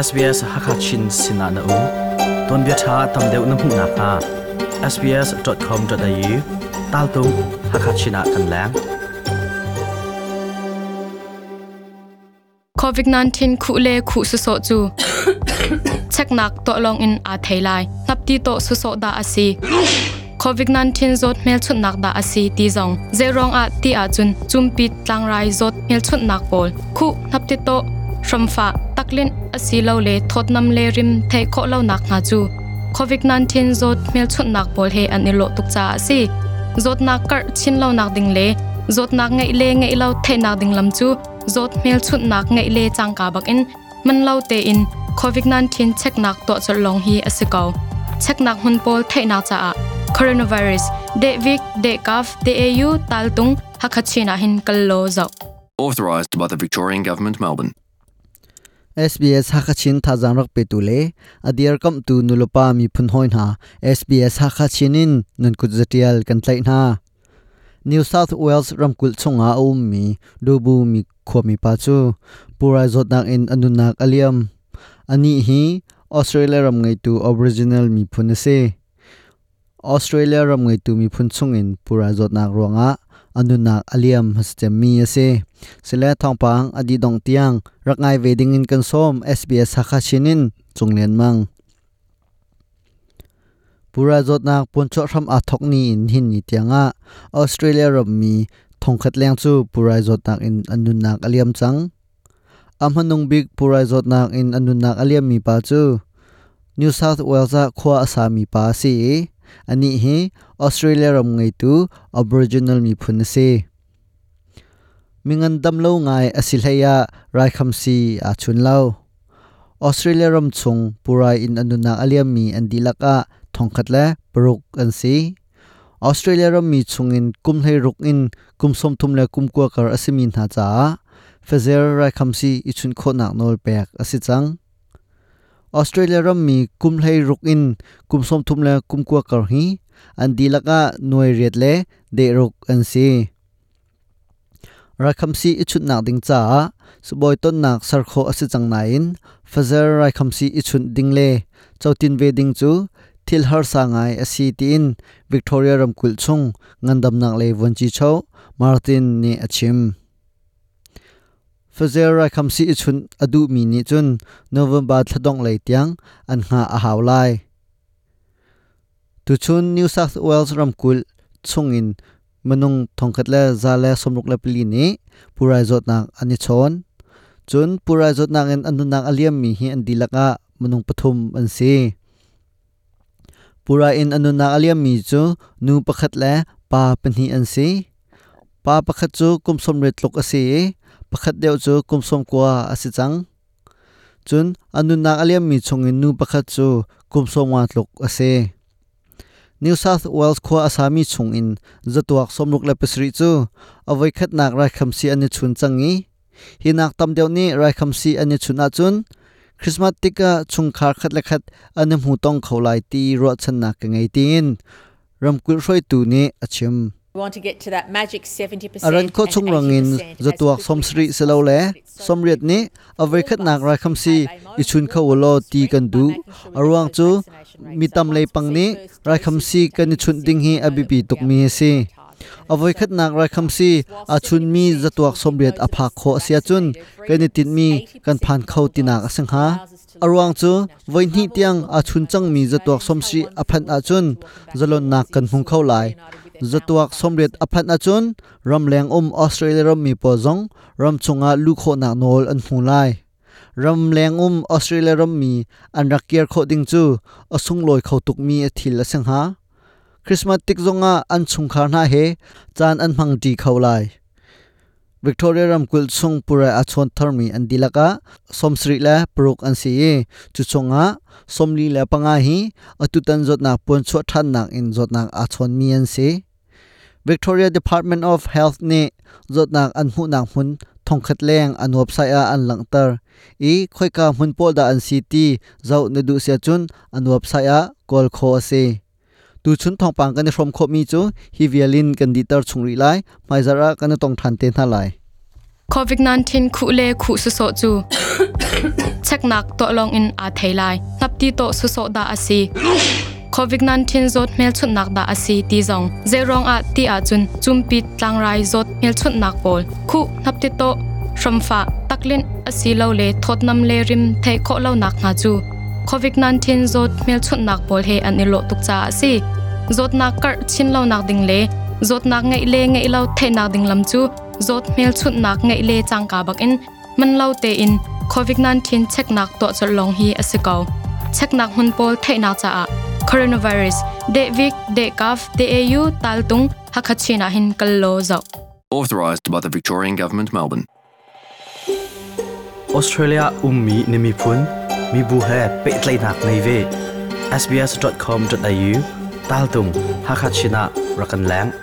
SBS Hakachin sinah na um. Tuanbia ṭha tam deuh na hmuh nakhnga sbs.com.au taltung Hakachin ah kan leng. COVID-19 khuh le khuh sawsawh cu cheknak tuah lawng in aa thei lai. Hnapti tawh sawsawh dah a si. COVID-19 zawt hmelchunhnak dah a si ti zong zeiruang ah ti ahcun cumpit tlangrai zawt hmelchunhnak pawl khuh hnapti tawh hramfah taklinh asilole thawtnam le rim theih khawh lonak hna cu COVID-19 zawt hmelchunhnak pawl he an i lawh tuk caah a si. Zawtnak karh chin lonak ding le zawtnak ngeih le ngeih lo theihnak ding lam cu zawt hmelchunhnak ngeih le cangka bakin man lo tein COVID-19 cheknak tuah colh lawng hi a si ko. Cheknak hmun pawl theihnak caah coronavirus dehvik dehkaf DAU taltung Hakha ah hin kal law zoh. Authorised by the Victorian Government, Melbourne. SBS Hakachin thazaang rak petu le a dirkamhtu nulepa miphun hawi hna SBS Hakachin in nan kut zatial kan tlaih hna. New South Wales ramkulh chungah a ummi Dubu mi khuami pa cu purai zawtnak in a nunnak a liam. Anih hi Australia ram ngeitu Aboriginal miphun a si. Australia ram ngeitu miphun chungin pura zawtnak ruangah a nunnak a liam cemmi a si. Sile thawngpang a dih dong tiang rak ngai ve dingin kan sawm SBS Hakha Chin in Cung Lian Mang. Pura zawtnak puanchuah hram aa thawk ni in hin ni tiangah Australia rammi thongkhat leng cu pura zawtnak in an nunnak a liam cang. A hmanung bik purai zawtnak in a nunnak a liammi pa cu New South Wales ah khua a sami pa a si i anih hi Australia ram ngeitu Aboriginal miphun a si. Mingan dam lo ngai a si hlei ah raikhamsi aa chun lo. Australia ram chung purai in a nunnak a liammi an dihlak ah thongkhat le paruk an si. Australia rammi chungin kum 16 in kum 30 le kum 20 kar a simi hna caah Pfizer raikhamsi i chunh khawhnak nawl pek a si cang. Australia rammi kum 16 in kum 30 le kum 20 kar hi an dihlak ah nuai riat le deh ruk an si. Raikhamsi i chunhnak ding caah sibawi tonnak ser khawh a si cang nain Pfizer raikhamsi i chunh ding le cotin ve ding cu thil harsa ngai a si tiin Victoria ramkulh chung ngandamnak lei vuanci-cho Martin nih a chim. Pfizer raikhamsi i chunh a duhmi nih cun November thladongh lei tiang an hngah a hau lai. Tuchun New South Wales ramkulh chungin minung thongkhat le 164 nih purai zawtnak an i chawn. Cun purai zawtnak in an nunnak a liammi hi an dihlak ah minung pathum an si. Purai in a nunnak a liammi cu nu pakhat le pa pahnih an si. Pa pakhat cu kum 80 tluk a si i pakhat deuh cu kum 90 a si cang. Cun a nunnak a liammi chungin nu pakhat cu kum 50 tluk a si. New South Wales khua a sami chungin zatuak 67 cu a voikhatnak raikhamsi an i chun cang i hi nak tam deuh nih raikhamsi an i chun ahcun Christmas tikah chungkhar khat le khat an i hmu tong kho lai ti ruahchannak ka ngei tiin ramkulh hruaitu nih a chim. A ran khawh chung rangin zatuak 70 silole 80 nih a voikhatnak raikhamsi i chun kho u law ti kan duh. A ruang cu mi tam lei pang nih raikhamsi kan i chunh ding hi a biapi tukmi a si. A voikhatnak raikhamsi aa chunmi zatuak 80 a phak khawh a si ahcun kan i tinhmi kan phan kho tinak a si hnga. A ruang cu voihnih tiang aa chun cangmi zatuak 70 a phanh ahcun zalonnak kan hmu kho lai. Zatuak 80 a phanh ahcun ramleng um Australia rammi pawl zong ramchung ah luh khawhnak nawl an hmu lai. Ramleng um Australia rammi an rak kir khawh ding cu a sunglawi kho tukmi a thil a si hnga. Christmas tik zongah an chungkhar hna he caan an hmangṭi kho lai. Victoria ramkulh chung purai a chawn tharmi an dihlak ah 76 an si i cu chungah 45 hi atutan zawtnak puanchuah ṭhannak in zawtnak aa chawnmi an si. Victoria Department of Health nih zawtnak an hmuhnak hmun thongkhat leng an website ah an langhter i khoika hmun pawl dah an si ti zoh na duh si ahcun an website ah kawl khawh a si. Tuchun thawngpang kan i hrawm khawhmi cu hi vial in kan dihter chung rih lai. Hmaizarh ah kan i tong ṭhan te hna lai. COVID-19 khuh le khuh sawsawh cu. Cheknak tuah lawng in aa thei lai. Hnapti tawh sawsawh dah a si? COVID-19 zawt hmelchunhnak dah a si ti zong zeiruang ah ti ahcun cumpit tlangrai zawt hmelchunhnak pawl khuh hnapti tawh hramfah taklinh asilole thawtnam le rim theih khawh lonak hna cu COVID-19 zawt hmelchunhnak pawl he an i lawh tuk caah a si. Zawtnak karh chin lonak ding le zawtnak ngeih le ngeih lo theihnak ding lam cu zawt hmelchunhnak ngeih le cangka bakin man lo tein COVID-19 cheknak tuah colh lawng hi a si ko. Cheknak hmun pawl theihnak caah coronavirus dehvik dehkaf deau taltung Hakha-Chin ah hin kal law zoh. Authorised by the Victorian Government, Melbourne. Australia ummi na miphun mibu he pehtlaihnak nei ve. sbs.com.au taltung Hakha-Chin ah rak kan leng.